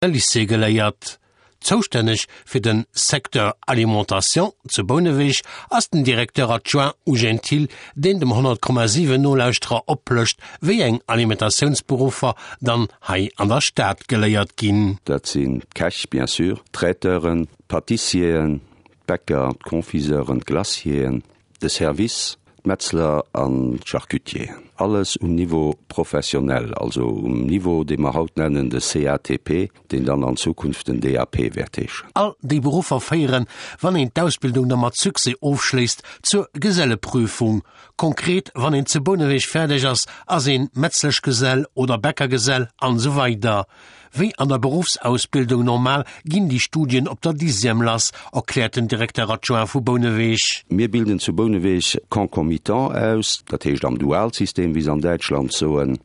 Lycée geléiert. Zoustänneg fir de Secteur Alimentation zu Bouneweg ass den Directeur adjoint Eugène Thill, deen dem 100,7 Nolauschterer oplëscht, wéi eng Alimentatiounsberuffer dann hei an der Stad geléiert ginn. Dat sinn d'Käch, bien sûr, d'Traiteuren, d'Pâtissieren, d'Bäcker, d'Confiseuren, d'Glacieren, De Service, d'Metzler an d'Charcutieren. Alles um Niveau professionnel, also um Niveau, dee mer haut nennen de CATP, deen dann an Zukunft den DAP wäert heeschen. All déi Beruffer féieren, wann een d'Ausbildung da mat Succès ofschléisst, zur Geselleprüfung. Konkret, wann een zu Bouneweg fäerdeg ass, ass een Metzleschgesell oder Bäckergesell an esou weider. Wéi an der Beruffsausbildung normal ginn déi Studien op der Dixième lass, erkläert den Directeur adjoint vu Bouneweg. Mir bilden zu Bouneweg concomitant aus, dat heescht am Dualsystem, wéi se an Däitschland soen.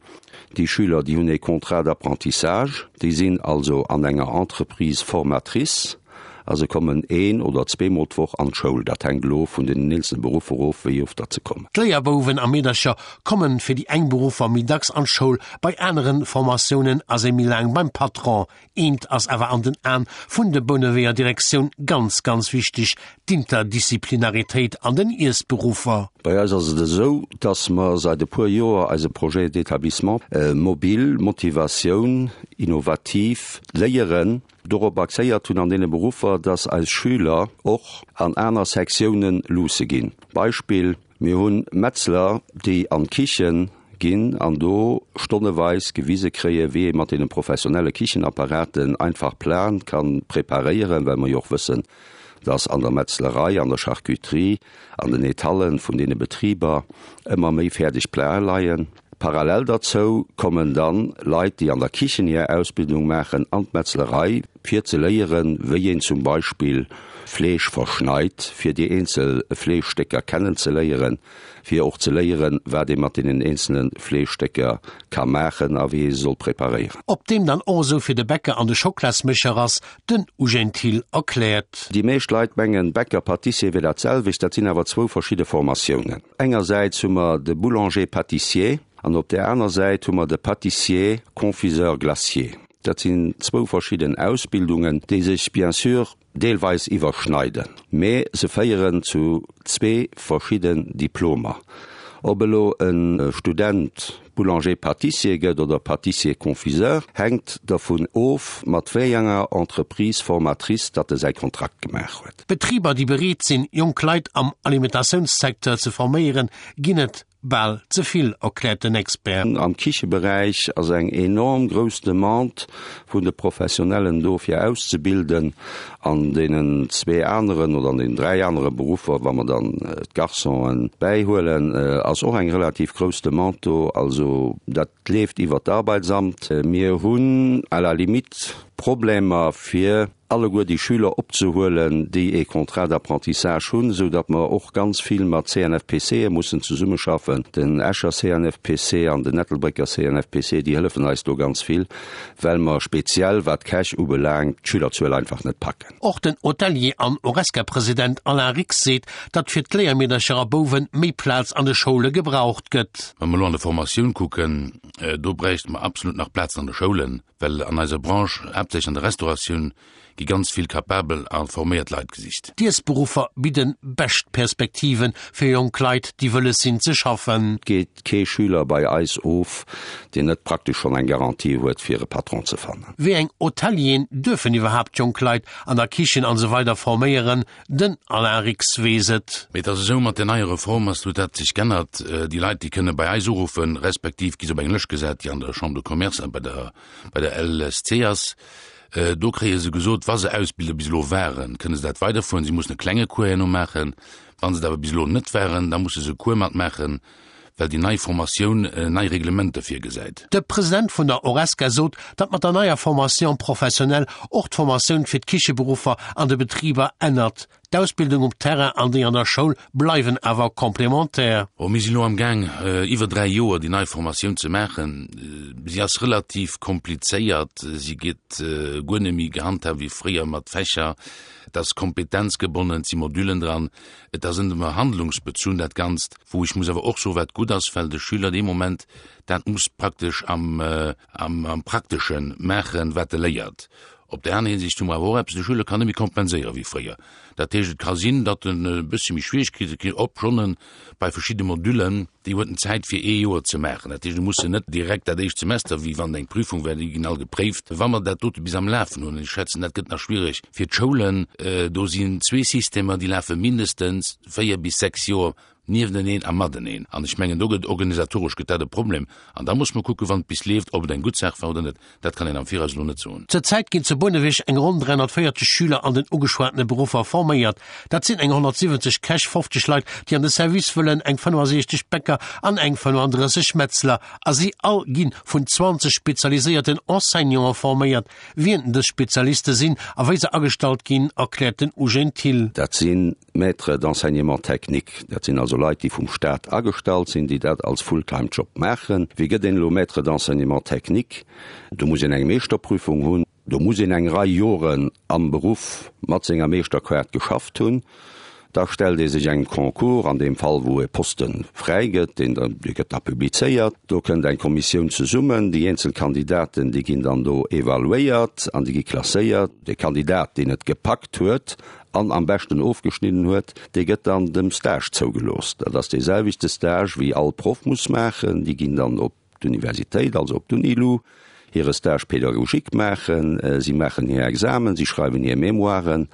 Déi Schüler, déi hunn ee Contrat d'apprentissage, déi sinn also an enger Entreprise formatrice a se kommen een oder zweemol d'Woch an d'Schoul. Dat hänkt elo vun den eenzele Beruffer of, wéi oft datt se kommen. D'Léierbouwen a Meedercher kommen fir déi eng Beruffer méi dacks an d'Schoul, bei aneren Formatiounen ass ee méi laang beim Patron. Eent ass awer an den Aen vun de Bouneweger Direktioun ganz, ganz wichteg, d'Interdisciplinaritéit an den Iessberuffer. Bei eis ass et esou, dass mer seit e puer Joer eise Projet d'établissement mobile, Motivatioun, innovativ Léieren, dorop axéiert hunn an deene Beruffer, dass eis Schüler och an aner Sektiounen luusse ginn. Beispill, Mir hunn Metzler, déi an d'Kichen ginn an do stonneweis gewise kréie wéi ee mat deene professionelle Kichenapparaten einfach Platen ka preparéieren, well mer jo och wëssen, dass an der Metzlerei, an der Charcuterie, an den Etallen vun deene Betriber ëmmer méi fäerdeg Platen leien. Parallel derzou kommen dann Leit, déi an der Kichen hir Ausbildung maachen, an d'Metzlerei, fir ze léieren, wéi een zum Beispill Fleesch verschneit, fir déi eenzel Fleeschstécker kennen ze léieren, fir och ze léieren, wat ee mat deenen eenzele Fleeschstécker ka maachen a wéi ee se soll preparéieren. Ob deem dann och esou fir de Bäcker an de Schoklasmécher ass, den Eugène Thill erkläert. Déi meescht Leit mengen, Bäcker, Pâtissier wier dat selwecht. Dat sinn awer zwou verschidde Formatiounen. Engersäits hu mer de Boulanger-Pâtissier an op där aner Säit hu mer de Pâtissier-Confiseur-Glacier. Dat sinn zwou verschidden Ausbildungen, déi sech bien sûr deelweis iwwerschneiden, mee se féieren zu zwee verschidden Diplomer. Ob elo e Student Boulanger-Pâtissier gëtt oder Pâtissier-Confiseur, hänkt dervun of, mat wéi enger Entreprise formatrice datt e säi Kontrakt gemaach huet. Betriber, déi bereet sinn, jonk Leit am Alimentatiounssecteur ze forméieren, ginn et bal ze vill, erkläert den Expert. Am Kicheberäich ass eng enorm grouss Demande vun de Professionellen do fir auszebilden. An deenen zwee aneren oder an deenen dräi anere Beruffer, wa mer dann d'Garçonen bäihuelen, ass och eng relativ grouss Demande do. Also dat leeft iwwert d'Arbeitsamt. Mir hunn à la limite Problemer fir alleguer déi Schüler opzehuelen, déi ee Contrat d'apprentissage hunn, esou datt mer och ganz vill mat CNFPCe mussen zesummeschaffen. Den Escher CNFPC an den Ettelbrécker CNFPC, déi hëllefen eis do ganz vill, well mer speziell wat d'Käch ubelaangt d'Schülerzuel einfach net packen. Och den Hotelier an Horesca-President Alain Rix seet, datt fir d'Léiermeedercher a Bouwen méi Plaz an de Schoule gebraucht gëtt. Wa mer elo an der Formatioun kucken, do bräichte mer absolut nach Plazen an de Schoulen. Well an eiser Branche, haaptsächlech an der Restauratioun, gi ganz vill kapabel a forméiert Leit gesicht. D'Iessberuffer bidden bescht Perspektive fir jonk Leit, déi wëlles sinn ze schaffen. Et geet kee Schüler bei eis of, deen net praktesch schonn eng Garantie huet, fir e Patron ze fannen. Wéi eng Hotelieren duerfen iwwerhaapt jonk Leit an der Kichen an esou weider forméieren? Den Alain Rix weess et. Mee et ass esou, mat der neier Reform ass huet dat sech g'ännert. Déi Leit, déi kënne bei eis uruffen, respektiv gi se op eng Lëscht gesat, déi an der Chambre de Commerce a bei der, bei der LSC ass. Do kréie se gesot, wa se Ausbilder bis elo waren, kënne se dat weiderfueren. Si mussen e klenge Cours herno maachen. Wa se et awer bis elo net waren, da musse se e Cours matmaachen, well déi nei Formatioun nei Reglementer virgesäit. De President vun der Horesca sot, datt mat der neier Formation professionnelle och d'Formatioun fir d'Kicheberuffer an de Betriber ännert. D'Ausbildung um Terrain an déi an der Schoul bleiwen awer complémentaire. Bon, mir sinn elo am Gaang, iwwer 3 Joer déi nei Formatioun ze maachen. Si ass relativ komplizéiert. Si gëtt guer net méi gehandhaabt wéi fréier mat Fächer. Et ass kompetenzgebonnen, et si Modulen dran. Et ass ëmmer handlungsbezunn dat Ganzt, wou ech muss awer och soen, wat gutt ass, well de Schüler dee Moment dat muss praktesch am, am Praktesche maachen, wat e léiert. Op där aner Hinsicht hu mer awer och eppes, de Schüler kann net méi kompenséiere wéi fréier. Dat heescht, et ka sinn, datt en e bëssche méi Schwierigkeete kritt, obschonn en bei verschidde Modüllen, déi huet en Zäit fir ee Joer ze maachen. Dat heescht, e muss se net direkt dat éischt Semester, wéi wann et eng Prüfung wär, déi ginn all gepréift. Wa mer dat dote bis am Lafen hunn, an ech schätzen, dat gëtt nach schwierig fir d'Schoulen, do sinn zwee Systemer, déi lafe mindestens 4 bis 6 Joer Niefteneen a mateneen. An ech mengen, do gëtt organisatoresch gëtt dat e Problem. An da muss mer kucken, wann et bis leeft, ob et eng gutt Saach war oder net. Dat kann een am Viraus elo net soen. Zur Zäit ginn zu Bouneweg eng ronn 340 Schüler an den ugeschwatene Beruffer forméiert. Dat sinn eng 170 Käch, 50 Leit, déi an de Service wëllen, eng 65 Bäcker an eng 35 Metzler. A si all gi vun 20 spezialiséierten Enseignanten forméiert. Wien dës Spezialiste sinn a wéi se agestallt ginn, erkläert den Eugène Thill. Dat sinn Maîtres d'enseignement technique, dat sinn also Leit, déi vum Staat agestallt sinn, déi dat als Fulltime-Job maachen. Wéi gëtt een elo Maître d'enseignement technique? Do muss een eng Meeschterprüfung hunn, do muss een eng Rei Joren am Beruff mat senger Meeschterkaart geschafft hunn. Da stellt ee sech engem Concours, an deem Fall wou e Poste fräi gëtt, deen da, dee gëtt da publizéiert. Do kënnt eng Kommissioun zesummen, déi eenzel Kandidaten, déi ginn dann do evaluéiert an déi gi klasséiert. De Kandidat, deen et gepackt huet an am beschten ofgeschnidden huet, dee gëtt dann dem Stage zougelooss. Dat ass dee selwechte Stage wéi all Proff muss maachen. Déi ginn dann op d'Universitéit, also op d'Unilu, hire Stage pédagogique maachen. Si maachen hir Examen, si schreiwen hir Mémoiren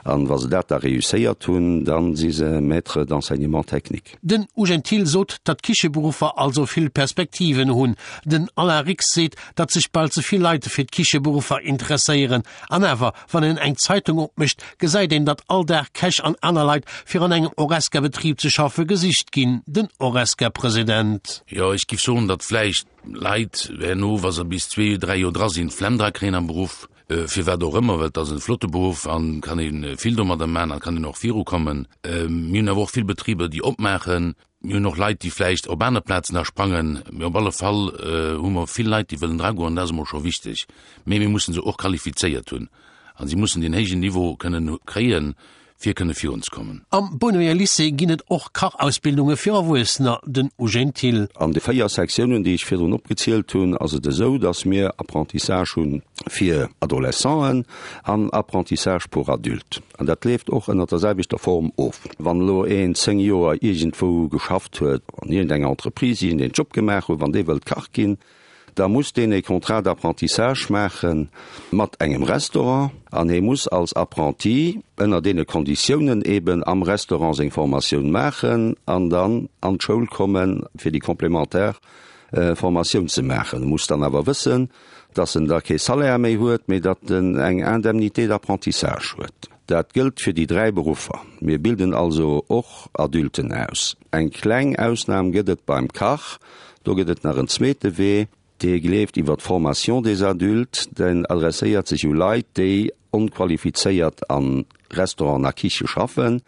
an wa se dat da réusséiert hunn, da si se Maître d'enseignement technique. Den Eugène Thill sot, datt d'Kicheberuffer also vill Perspektiven hunn. Den Alain Rix seet, datt sech bal ze vill Leit fir d'Kicheberuffer interesséieren. An awer, wann een eng Zeitung opmécht, gesäit een, datt all Dag Käch an aner Leit fir an engem Horesca-Betrib ze schaffe gesicht ginn. Den Horesca-President. Jo, ech giff soen, datt vläicht Leit herno, wa se bis zwee, dräi Joer dra sinn, d'Flemm dra kréien am Beruff, firwat och ëmmer, well et ass e flotte Beruff an kann ee vill domadder maachen an kann een och virukommen. Mir hunn awer och vill Betriber, déi opmaachen. Mir hunn och Leit, déi vläicht op aner Plazen da sprangen, mee op alle Fall hu mer vill Leit, déi wëllen dragoen, an dat ass emol scho wichteg. Mee mir mussen se och qualifizéiert hunn a si mussen deen héijen Niveau kënnen kréien, fir kënne virunzekommen. Am Bouneweg Lycée ginn et och Kachausbildunge fir Erwuessener, den Eugène Thill. An de 4 Sektiounen, déi ech virdrun opgezielt hunn, ass et esou, dass mir Apprentissage hu fir Adolescenten an Apprentissage pour adultes. An dat leeft och ënnert der selwechter Form of. Wann elo een 10 Joer iergendwou geschafft huet, an iergendenger Entreprise iergendeen Job gemaach huet, wann dee wëllt Kach ginn, da muss deen e Contrat d'apprentissage maache mat engem Restaurant an hee muss als Apprenti ënner deene Konditiounen eeben am Restaurant seng Formatioun maachen an dann an d'Schoul komme fir déi complémentaire Formatioun ze maachen. E muss dann awer wëssen, dass en da kee Salaire méi huet, mee datt en eng Indemnité d'apprentissage huet. Dat gëllt fir déi 3 Beruffer. Mir bilden also och Adulten aus. Eng kleng Ausnam gëtt et beim Kach. Do gëtt et nach en zweete Wee, dee gleeft iwwer d'Formation des adultes. Den adresséiert sech u Leit, déi onqualifizéiert a Restauranten a Kiche schaffen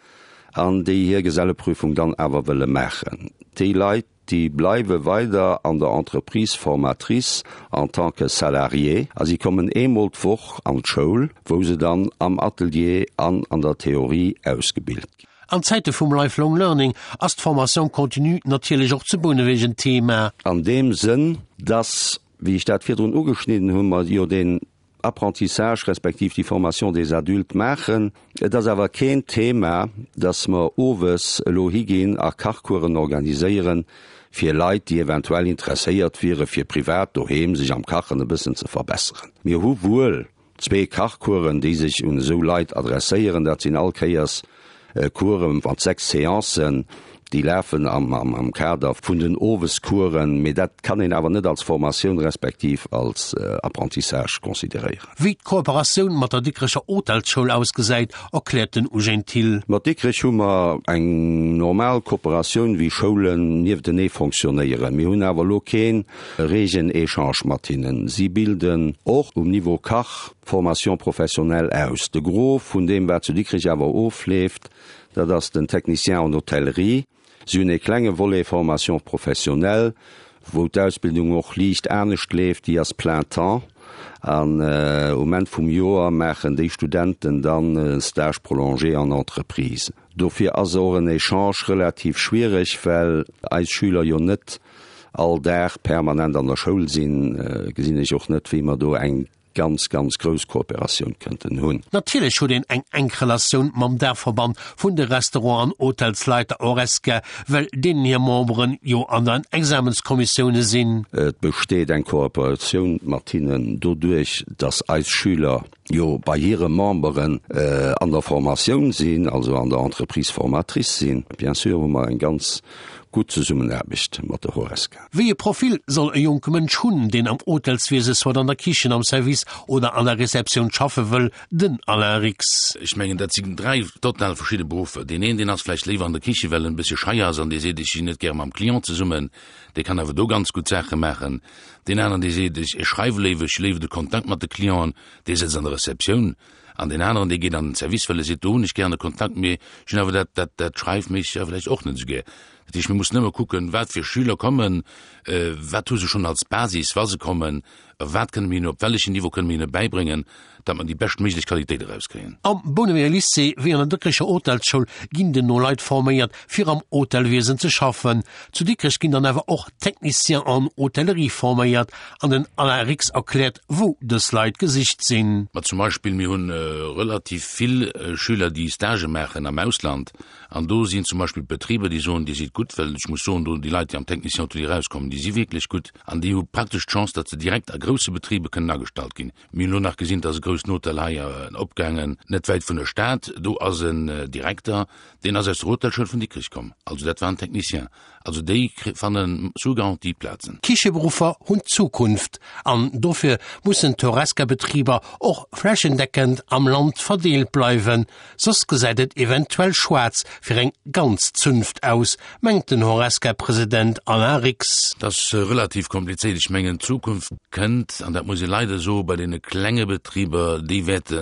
an déi hir Geselleprüfung dann awer wëlle maachen. Déi Leit, déi bleiwe weider an der Entreprise formatrice en tant que salarié a si kommen eemol d'Woch an d'Schoul, wou se dann am Atelier an an der Theorie ausgebilt ginn. An Zäite vum Lifelong Learning ass d'Formation continue natierlech och zu Bouneweg en Thema. An deem Sënn, dass, wéi ech dat virdrun ugeschnidden hunn, mer jo deen Apprentissage respektiv déi Formation des adultes maachen. Et ass awer keen Thema, dass mer owes elo higinn a Kachcoursen organiséieren fir Leit, déi eventuell interesséiert wiere fir privat doheem sech am Kachen e bëssen ze verbesseren. Mir hu wuel zwee Kachcoursen, déi sech un esou Leit adresséieren. Dat sinn all Kéiers Course mat 6 Seancen, déi lafen am Kader vun den Owescoursen, mee dat kann een awer net als Formatioun respektiv als Apprentissage consideréieren. Wéi d'Kooperatioun mat der Dikrecher Hotelsschoul ausgesäit, erkläert den Eugène Thill. Mat Dikrech hu mer eng normal Kooperatioun, wéi Schoulen nieftenee fonctionnéieren. Mir hunn awer elo kee reegen Echange mat hinnen. Si bilden och um Niveau Kach. Formation professionnelle aus. De Gros vun deem, wat zu Dikrech awer ofleeft, dat ass den Technicien en hôtellerie. Si hunn ee klenge Volet Formation professionnelle, wou d'Ausbildung och liicht anescht leeft, déi ass plein temps an um Enn vum Joer maachen déi Studenten dann e Stage prolongé en entreprise. Dofir ass och en Echange relativ schwiereg, well eis Schüler jo net all Dag permanent an der Schoul sinn, gesinn ech och net, wéi mer do eng ganz, ganz grouss Kooperatioun kënnten hunn. Natierlech huet een eng enk Relatioun mam Daachverband vun de Restaurant an Hotelsleiter Horesca, well deenen hir Memberen jo an den Examenskommissioune sinn. Et besteet eng Kooperatioun mat hinnen doduerch, dass eis Schüler jo bei hire Memberen an der Formatioun sinn, also an der Entreprise formatrice sinn. Bien sûr hu mer eng ganz gutt Zesummenaarbecht mat der Horesca. Wéi e Profil soll e jonke Mënsch hunn, deen am Hotelswiese soit an der Kichen, am Service oder an der Receptioun schaffe wëll? Den Alain Rix. Ech mengen, dat sinn 3 total verschidde Beruffer. Deen een, deen ass vläicht léiwer an der Kiche, well en e bëssche schei ass an dee seet, ech sinn net gäre mam Client zesummen, dee kann awer do ganz gutt Saache maachen. Deen aneren, dee seet, ech schreiwe léiwer, ech hu léiwer de Kontakt mat de Clienten, dee sëtzt an der Receptioun. An deen aneren, dee geet an den Service, well e seet, do hunn ech gären de Kontakt, mee ech hunn awer dat, dat, dat Schreifméissegt awer vläicht och net esou gär. Dat heescht, mir mussen ëmmer kucken, wat fir Schüler kommen, wat hu se schonn als Basis, wa se kommen, a wat kënne mir hinnen, op wellechen Niveau kënne mir hinne bäibréngen, datt mer déi beschtméiglech Qualitéit erauskréien. Am Bouneweger Lycée wéi an der Dikrecher Hotelsschoul ginn den no Leit forméiert, fir am Hotelwiesen ze schaffen. Zu Dikrech ginn dann awer och Techniciens en hôtellerie forméiert an den Alain Rix erkläert, wou dës Leit gesicht sinn. Ma zum Beispill, mir hunn relativ vill Schüler, déi Stagë maachen am Ausland, An do sinn zum Beispill Betriber, déi soen, Dir sidd gutt, well ech muss soen, do déi Leit, déi am Technicien hôtelier erauskommen, déi si wierklech gutt an déi hu praktesch d'Chance, datt se direkt a grousse Betriber kënnen agestallt ginn. Mir hunn elo nach gesinn, et ass e groussen Hotel hei opgaangen, net wäit vun der Stad, do ass en Direkter, deen ass aus der Hotelschoul vun Dikrech komm, also dat war en Technicien. Also déi fanne sous garantie Plazen. Kicheberuffer hunn d'Zukunft an dofir mussen d'Horesca-Betriber och flächendeckend am Land verdeelt bleiwen, soss gesäit et eventuell schwaarz fir eng ganz Zunft aus, mengt den Horesca-President Alain Rix. Dat ass relativ komplizéiert. Ech mengen d'Zukunft kënnt, an dat muss ee leider soen, bei deene klenge Betriber, déi wäerte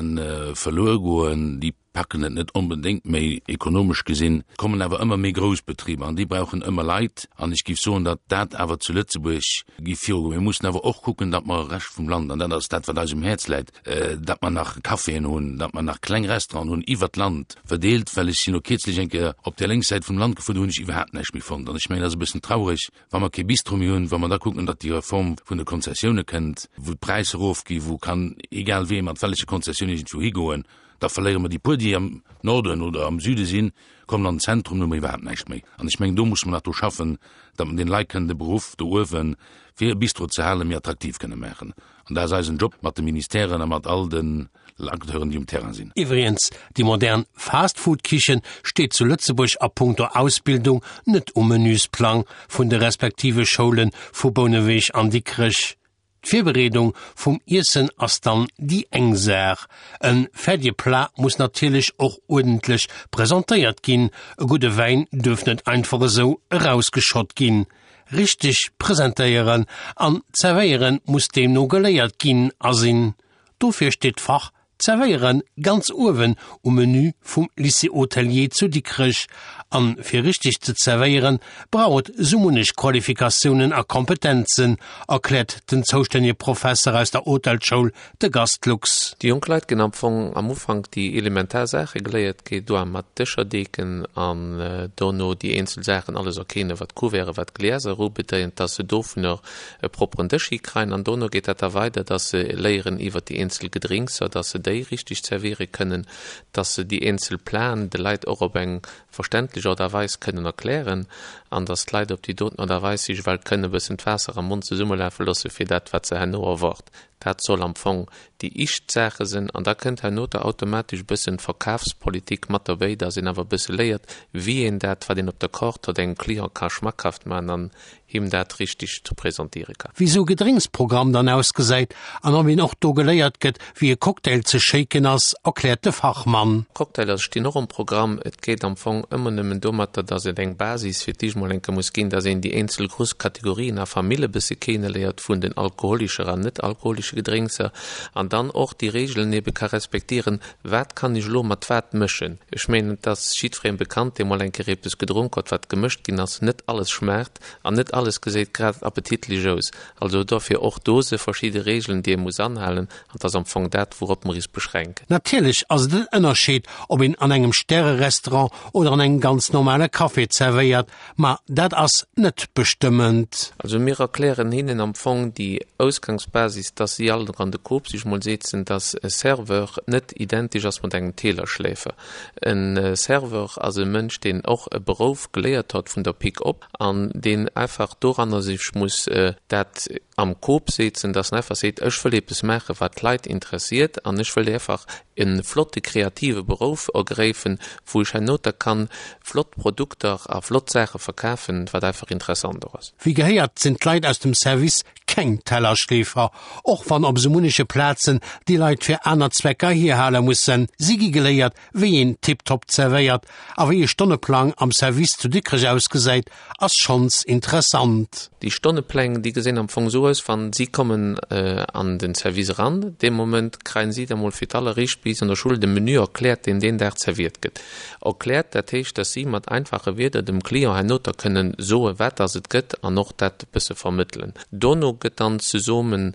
verluer goen, déi packen et net onbedéngt méi ekonomesch gesinn, kommen awer ëmmer méi grouss Betriber an déi brauchen ëmmer Leit an ech géif soen, datt dat awer zu Lëtzebuerg géif virugoen. Mir mussen awer och kucken, datt mer Rescht vum Land, an dat ass dat wat eis um Häerz läit, datt mer nach Caféen hunn, datt mer nach kleng Restauranten hunn iwwert d'Land verdeelt, well ech sinn elo kierzlech eng Kéier op där lénks Säit vum Land gefuer, do hunn ech iwwerhaapt näischt méi fonnt an ech mengen, dat ass e bëssen traureg, wa mer kee Bistro méi hunn, wa mer da kucken, datt déi Reform vun de Konzessioune kënnt, wou d'Präisser erofgi, wou kann egal wee mat welleche Konzessioun iergendwou higoen, Da verléiere mer déi puer, déi am Norden oder am Süde sinn, kommen an den Zentrum, do hu mer iwwerhaapt näischt méi. An ech mengen, do musse mer nach dru schaffen, datt mer deene Leit kënnen de Beruff do uewen, fir e Bistro ze halen, méi attraktiv kënne maachen. An dat ass eisen Job mat de Ministèren a mat all den Acteuren, déi um Terrain sinn. Iwwregens, déi modern Fast-Food-Kichen steet zu Lëtzebuerg a punkto Ausbildung net um Menüsplang vun de respektive Schoule vu Bouneweg an Dikrech. D'Virbereedung vum Iessen ass dann déi eng Saach. E fäerdege Plat muss natierlech och uerdentlech presentéiert ginn. E gudde Wäin duerf net einfach esou erausgeschott ginn. Richteg presentéieren an zerwéieren muss deemno geléiert ginn a sinn. Dofir steet d'Fach Zerwéieren ganz uewen um Menü vum Lycée Hôtelier zu Dikrech. An fir richteg ze zerwéieren, brauch et sou munnech Qualifikatiounen a Kompetenzen, erkläert den zoustännege Professer aus der Hotelschoul, de Gast Lux. Déi jonk Leit ginn am Fong am Ufank déi elementar Saache geléiert, geet doa mat Dëscher deeken an dono déi eenzel Saachen alles erkennen, wat Couverten, wat Glieser ubedéint, dass se dovunner e propperen Dësch hikreien an dono geet dat da weider, dass se léieren iwwert déi eenzel Gedrinkser, dass se déi richteg zerwiere kënnen, dass se déi eenzel Platen de Leit och op eng verständlech Art a Weis kënnen erklären an dass d'Leit op déi doten Art a Weis sech ewell kënnen e bëssen d'Waasser am Mond zesummelafe loosse fir dat wat se herno erwart. Dat soll am Fong déi ischt Saache sinn an da kënnt herno da automatesch e bëssen Verkafspolitik mat derbéi, dass een awer e bësse léiert, wéi een dat wat een op der Kaart huet, engem Client ka schmackhaft maachen an him dat richteg presentéiere kann. Wéi sou Gedrénksprogramm dann ausgesäit an ob een och do geléiert gëtt, wéi e Cocktail ze shaken ass, erkläert de Fachmann. Cocktailer stinn och um Programm. Et geet am Fong ëmmer nëmmen domatter, dass et eng Basis fir d'éischt. mol eng Kéier muss ginn, dass een déi eenzel grouss Kategorien a Famille e bësse keneléiert vun den alkoholischer an net alkoholische Gedrénkser an dann och déi Regeln ebe ka respektieren, wat kann ech elo mat wat mëschen. Ech mengen, et ass jiddweree bekannt, dee mol eng Kéier eppes gedronk huet, wat gemëscht ginn ass, net alles schmaacht an net alles geséit grad appetitlich aus. Also dofir och do se verschidde Regeln, déi ee muss anhalen, an et ass am Fong dat, wourop mer is beschränken. Natierlech ass et en Ënnerscheed, ob een an engem Stärerestaurant oder an engem ganz normale Café zerwéiert, ma dat ass net bestëmmend. Also mir erklären hinnen am Fong déi Ausgangsbasis, dass si all an de Kop sech mol setzen, dass e Serveur net identesch ass mat engem Teelerschläfer. E Serveur ass e Mënsch, deen och e Berouf geléiert hott vun der Pik op an deen einfach doranner sech muss dat am Kop setzen, dass en einfach seet, ech wëll eppes maachen, wat d'Leit interessiert an ech wëll einfach e flotte kreative Berouf ergräifen, wou ech herno da kann flott Produkter a flott Saache verkafen, wat einfach interessant och ass. Wéi gehéiert sinn d'Leit aus dem Service keng Tellerschleefer, och wann op esou munneche Plazen déi Leit fir aner Zwecker hierhale mussen. Si gi geléiert, wéi een tiptop zerwéiert a wéi e Stonneplang am Service zu Dikrech ausgesäit, ass schonns interessant. Déi Stonnepläng, déi gesinn am Fong esou aus, Wann si kommen an den Service eran, dee Moment kreien si da mol fir d'alleréischt bis an der Schull de Menü erkläert, deen deen Dag zerwiert gëtt. Erkläert, dat heescht, dass si mat einfache Wierder dem Client herno da kënnen soen, wat dass et gëtt an och dat e bësse vermëttelen. Dono gëtt dann zesummen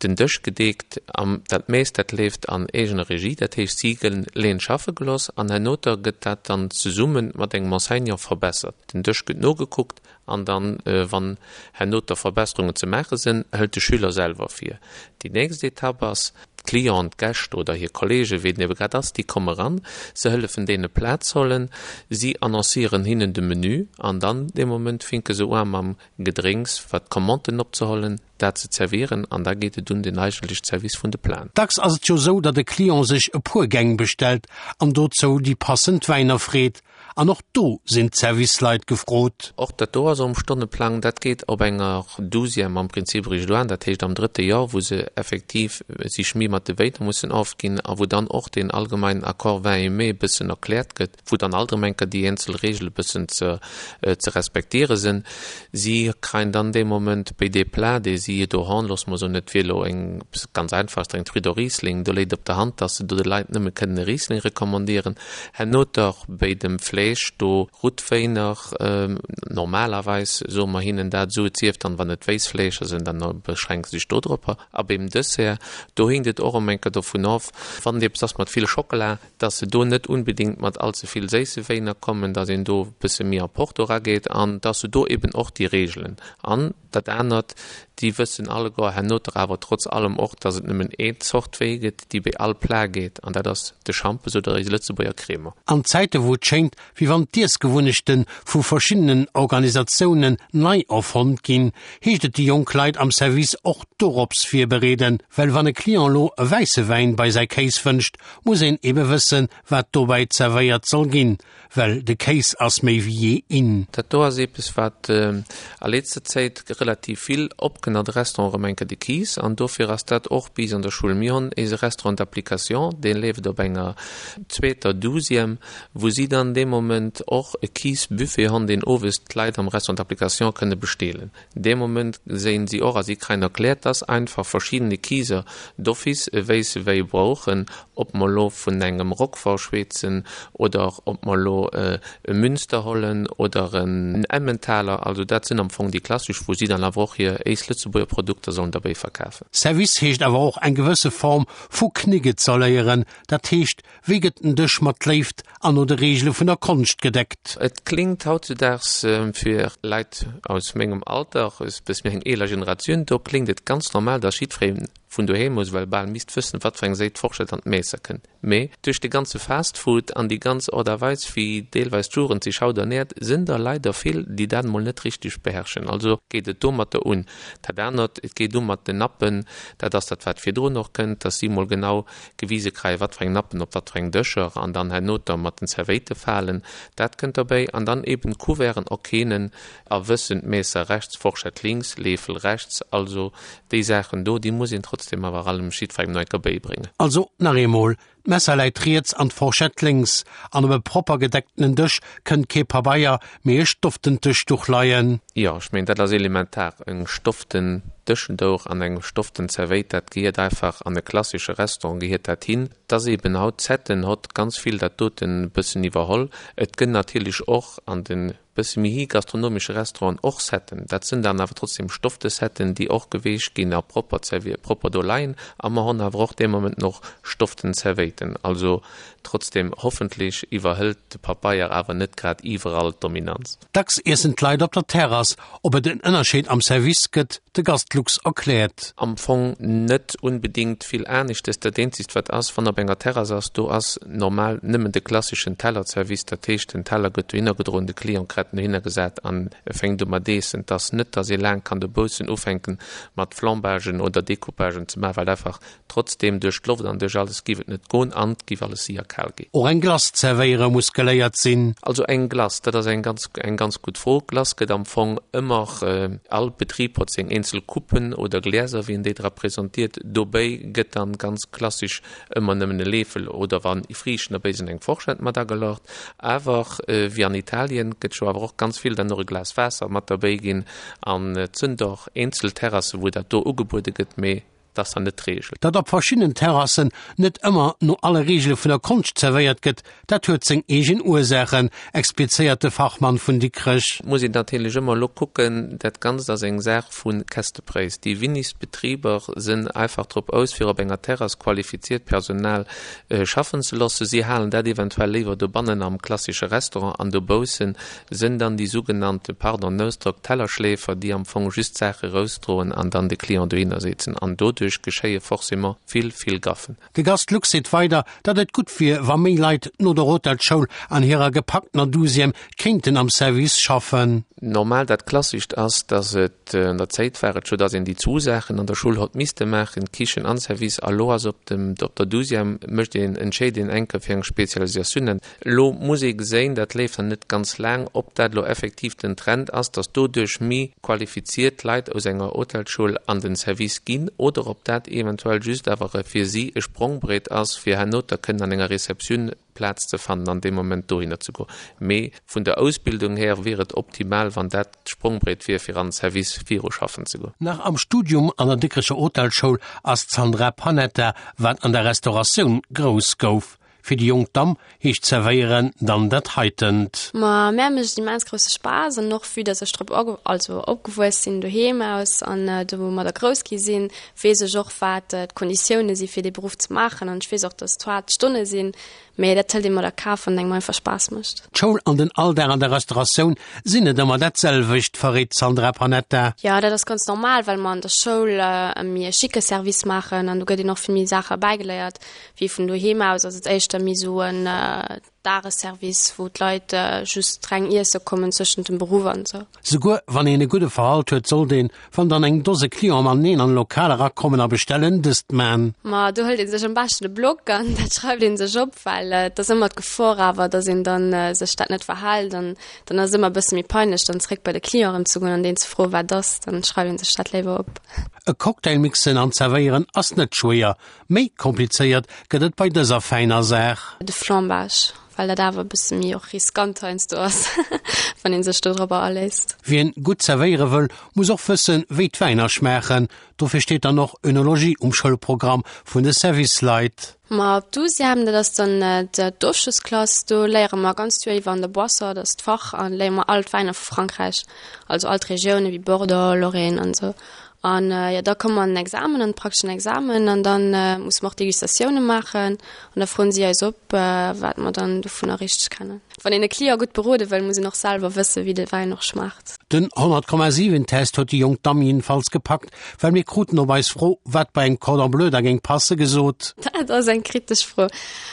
den Dësch gedeekt an dat meescht dat leeft an eegener Regie, dat heescht si gënn leen schaffe geloss an hernoter gëtt dat dann zesumme mat engem Enseignant verbessert. Den Dësch gëtt nogekuckt an dann wann hernoter Verbesserungen ze maache sënn, hëlt de Schüler selwer vir. Déi nächst Etapp ass, d'Clienten, d'Gäscht oder hir Kollegen, wéi et ebe grad ass, déi komme ran, se hëllefen deene Plaz hollen, si annoncieren hinnen de Menü an dann dee Moment finke se ua mam Gedrénks, wat d'Commanden opzehollen, dat ze zerwieren an da geet et un den eigentlech Service vun de Platen. Dacks ass et jo sou, datt e Client sech e puer Gäng bestellt an dozou déi passend Wäiner freet. An och do sinn d'Serviceleit gefrot. Och dat do ass um Stonneplang. Dat geet op enger Douzième am Prinzip eréischt un, dat heescht am drëtte Joer, wou se effektiv sech méi mat de Wäiner mussen ofginn a wou dann och deen allgemeinen Accord vin et mets e bëssen erkläert gëtt. wou dann alt erëm eng Kéier déi eenzel Regele bëssen ze ze respektiere sinn. Si kreien dann dee Moment béi dee Plat, dee si do hon, loosse mer soen, et wier elo eng, ganz einfach, eng Truite au Riesling, do léit op der Hand, dass se do de Leit nëmme kënnen e Riesling recommandieren. Herno dach béi dem Fleesch, do Routwéiner, normalerweis soe mer hinnen dat esou, et sief dann, wann et Wéissfleescher sinn, dann beschränke se sech dodropper. A beim Dessert, do hinkt et och erëm eng Kéier dovun of, wann et eppes ass mat vill Schockela, dass se do net unbedingt mat allze vill séisse Wéiner kommen, dass een do e bësse méi a Porto erageet an dass se do eben och déi Regelen an dat anert, déi wëssen alleguer hernoter awer trotz allem och, dass et nëmmen een Zort Wéi gëtt, déi béi all Plat geet an dat ass de Schampes oder eise Lëtzebuerger Crémant. An Zäite wou et schéngt, wéi wann d'Iessgewunnechte vu verschiddenen Organisatiounen nei erfonnt ginn, heescht et déi jonk Leit am Service och dorops virbereeden, well wann e Client lo e wäisse Wäin bei säi Kéis wënscht, muss een ebe wëssen, wat dobäi zerwéiert soll ginn, well de Kéis ass méi wéi jee in. Dat do ass eepes, wat a letzter Zäit relativ vill opkënn an de Restaurant erëm eng Kéier, de Kiis. An dofir ass dat och bis an der Schull. Mir hunn eise Restaurant d'application, dee leeft op enger zweeter Douzième, wou si dann dee Moment och e Kiisbuffet hunn, deen owes d'Leit am Restaurant d'application kënne besteelen. Dee Moment séin si och a si kreien erkläert, dass einfach verschiedene Kiiser d'office e wéisse Wéi brauchen, ob mer lo vun engem Roquefort schweetzen oder ob mer lo e Münster hollen oder en Emmentaler. Also dat sinn am Fong déi klassesch, wou si dann awer och hir éis Lëtzebuerger Produkter sollen derbéi verkafen. Service heescht awer och eng gewësse Form vu Knigge z'erléieren, dat heescht Wéi gëtt den Dësch mat Léift an no de Reegele vun der Konscht gedeckt? Et klingt hautzudaags fir Leit aus mengem Alter, e bësse méi eng eeler Generatioun, do klingt et ganz normal, dass jiddweree vun doheem aus ewell bal misst wëssen, wat fir eng Séit d'Forschett an d'Meesser kënnt. Mee duerch de ganze Fast Food an déi ganz Ort a Weis, wéi deelweis d'Jugend sech haut ernäert, sinn der leider vill, déi dat emol net richteg beherrschen. Also geet et domatter un. Dat anert, et geet u mat den Nappen, dat ass dat, wat virdrun och kënnt, dass si emol genau gewise kréien, wat fir eng Nappen op wat fir eng Dëscher an dann hernoter mat den Zerwéite falen, dat kënnt derbäi an dann eben d'Couverten erkennen a wëssen, Messer rechts, Forschett links, Leefel rechts, also déi Saachen do, déi muss een trotzdem awer allem jiddwerengem nach eng Kéier bäibréngen. Also nach eemol, D'Messer läit riets an d'Forschett lénks, an op e propper gedecktenen Dësch kënnt kee Pabeier, mee e stofftent Dëschduch leien. Jo, ech mengen, dat ass elementar. Eng stofften Dëschendouch an eng stofften Zerwéit, dat gehiert einfach an e klassesche Restaurant gehiert dat hin. Et ass eben haut, d'Setten hott ganz vill dat doten e bëssen iwwerholl. Et gëtt natierlech och an de bësse méi hi gastronomesche Restauranten och Setten. Dat sënn dann awer trotzdem stoffte Setten, déi och geweecht ginn a propper zerwier, propper do leien. A mer honn awer och dee Moment och stofften Zerwéiten. Also trotzdem, hoffentlech iwwerhëlt de Papeier awer net grad iwwerall d'Dominanz. Dacks iessen d'Leit op der Terrass. Ob et en Ënnerscheed am Service gëtt, de Gast Lux erkläert. Am Fong net unbedingt vill aneschtes. Dat eenzegt wat ass, wann op enger Terrass ass, do ass normal nëmmen de klasseschen Tellerservice. Dat heescht, den Teller gëtt dohinner gedroen, de Client kret en dohinner gesat an e fänkt u mat eessen. Et ass net, dass ee laang kann dobaussen ufänken mat Flambagen oder Decoupagen ze maachen, well einfach Trotzdem, duerch d'Loft an duerch alles giff et net goen an et giff alles séier kal ginn. Och eng Glace zerwéiere muss geléiert sinn. Also eng Glace, dat ass eng ganz, eng ganz gutt Fro. Glace gëtt am Fong ëmmer, all Betrib hott seng eenzel Coupen oder Gläser, wéi en déi dra presentiert. Dobéi gëtt dann ganz klassisch ëmmer nëmmen e Leefel oder wann Friichten dobéi sinn, eng Forschett mat agelaucht. Awer wéi an Italien gëtt scho awer och ganz vill dann och e Glas Waasser mat derbéi ginn an et sënn och eenzel Terrassen, wou dat do ugebuede gëtt, mee Dat ass dann net d'Reegel. Datt op verschiddenen Terrassen net ëmmer no alle Reegele vun der Konscht zerwéiert gëtt, dat huet seng eegen Ursaachen, explizéiert de Fachmann vun Dikrech. Et muss een natierlech ëmmer elo kucken, dat Ganzt ass eng Saach vu Kästepréis. Déi winnigst Betriber sënn einfach drop aus, fir op enger Terrass qualifiziert Personal schaffen ze loossen. Si halen dat eventuell léiwer dobannen am klassische Restaurant an dobaussen Sënn dann déi sougenannte, pardon den Ausdrock, Tellerschläfer, déi am Fong just d'Saache rausdroen an dann de Client dohinner setzen. An doduerch geschéie forcément vill, vill Gaffen. De Gast Lux seet weider, datt et gutt wier, wa méi Leit no der Hotelsschoul an hirer gepacktener Douzième kéinten am Service schaffen. Normal, dat Klassischt ass, datt et, an der Zéit war et scho, datt een déi zwu Saachen an der Schull hott misste maachen, Kichen an Service. A lo ass op dem, op der Douzième mécht een, entscheet een enker fir eng Spezialisatioun. Elo muss ee geséin, dat leeft dann net ganz laang, ob dat elo effektiv den Trend ass, dass doduerch méi qualifiziert Leit aus enger Hotelschoul an den Service ginn, oder ob dat eventuell just awer e fir si e Sprongbrett ass, fir herno da kënnen an enger Receptioun Plaz ze fannen an dee Moment dohinner ze goen. Mee vun der Ausbildung här wier et optimal, wann dat d'Sprongbrett wier, fir an den Service viru schaffen ze goen. Nach am Studium an der Dikrecher Hotelschoul ass d'Sandra Panetta, wat an der Restauratioun grouss gouf, Fir déi jonk Damm heescht zerwéieren dann dat heitent. Ma mär mécht et immens grousse Spaass an och vue dass ech drop also opgewuess sinn doheem aus an domadder grouss gi sinn, weess ech och wat d'Konditioune si fir dee Beruff ze maachen an ech weess och dass et haart Stonne sinn, mee dat hëlt ee mat a Kaf wann et engem einfach Spaass mécht. D'Schoul an den Alldag an der Restauratioun sinn net ëmmer dat selwecht, verréit d'Sandra Panetta. Jo, dat ass ganz normal, well mer an der Schoul e méi e schicke Service maachen an do gëtt een och vill méi Saache bäigeléiert. Wéi vun doheem aus ass et éischter méi sou en Dagesservice, wou d'Leit just reng iesse kommen zwëschent dem Beruff an sou. Souguer wann een e gudde Verhalt huet, sollt een, wann dann eng Dose Clienten mateneen an e Lokal erakommen a bestellen, dëst man. Ma do hëlt ee sech am beschten e Block an dat schreift ee sech op, well et ass ëmmer d'Gefor awer, dass een dann sech dat net verhält an dann ass et ëmmer e bësse méi peinlech, dann zeréck bei de Client erëm ze goen an deen ze froen, wat ass. Dann schreift ee sech dat léiwer op. E Cocktail mixen an zerwéieren ass net schwéier, Méi komplizéiert gëtt et bei dëser fäiner Saach. De Flambage, well dat awer e bësse méi och riskant heiansdo ass, wann ee sech dodropper aléisst. Wien gutt zerwéiere wëll, muss och wëssen, wéi d'Wäiner schmaachen. Dofir steet dann och Önologie um Schoulprogramm vun de Service-Leit. Ma op Douzième, dat ass dann d'Ofschlossklass, do léiere mer ganz d'Joer iwwer an der Boisson, dat ass d'Fach, a léiere mer all d'Wäiner vu Frankräich, also all d'Regioune wéi Bordeaux, Lorraine an esou. An jo, da komme mer an den Examen, an de prakteschen Examen, an da musse mer och Degustatioune maachen. An da froen si eis op, wat mer dann dovunner richteg kennen. Wann een e Client gutt berode wëll, muss een och selwer wëssen, wéi de Wäin och schmaacht. Den 100,7 Test huet déi jonk Damm jiddefalls gepackt, well mir kruten op eis Fro, wat bei engem Cordon Bleu da géing passe, gesot. Dat ass eng kritesch Fro.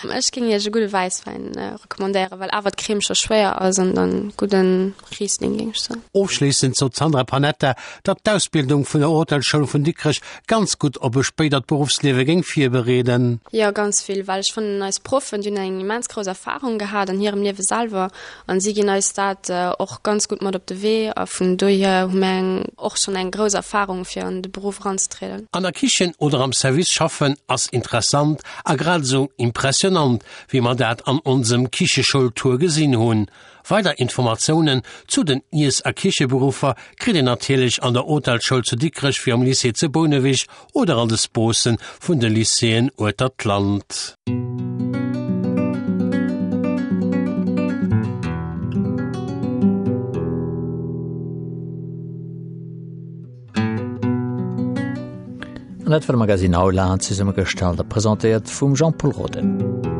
Ech géing iech e gudde Wäisswäin recommandéieren, well awer d'Crème scho schwéier ass an dann gudden Riesling géing ech soen. Ofschléissend sot d'Sandra Panetta, datt d'Ausbildung vun der. Hotelschoul vun Dikrech ganz gutt op e spéidert Beruffsliewe géing virbereeden. Jo, ganz vill, well ech fannen eis Proffen, déi hunn eng immens grouss Erfarung gehat an hirem Liewe selwer an si ginn eis dat och ganz gutt mat op de Wee a vun dohier hu mir eng och schonn eng grouss Erfarung fir an de Beruff eranzetrieden. An der Kichen oder am Service schaffen ass interessant a grad esou impressionant, wéi mer dat an onsem Kicheschoul-Tour gesinn hunn. Weider Informatiounen zu den Iess a Kicheberuffer kritt een natierlech an der Hotelschoul zu Dikrech wéi am Lycée zu Bouneweg oder an de Sposen vun de Lycéeën ueter d'Land. An dat war de Magazine Aula, zesummegestallt a presentéiert vum Jean-Pol Roden.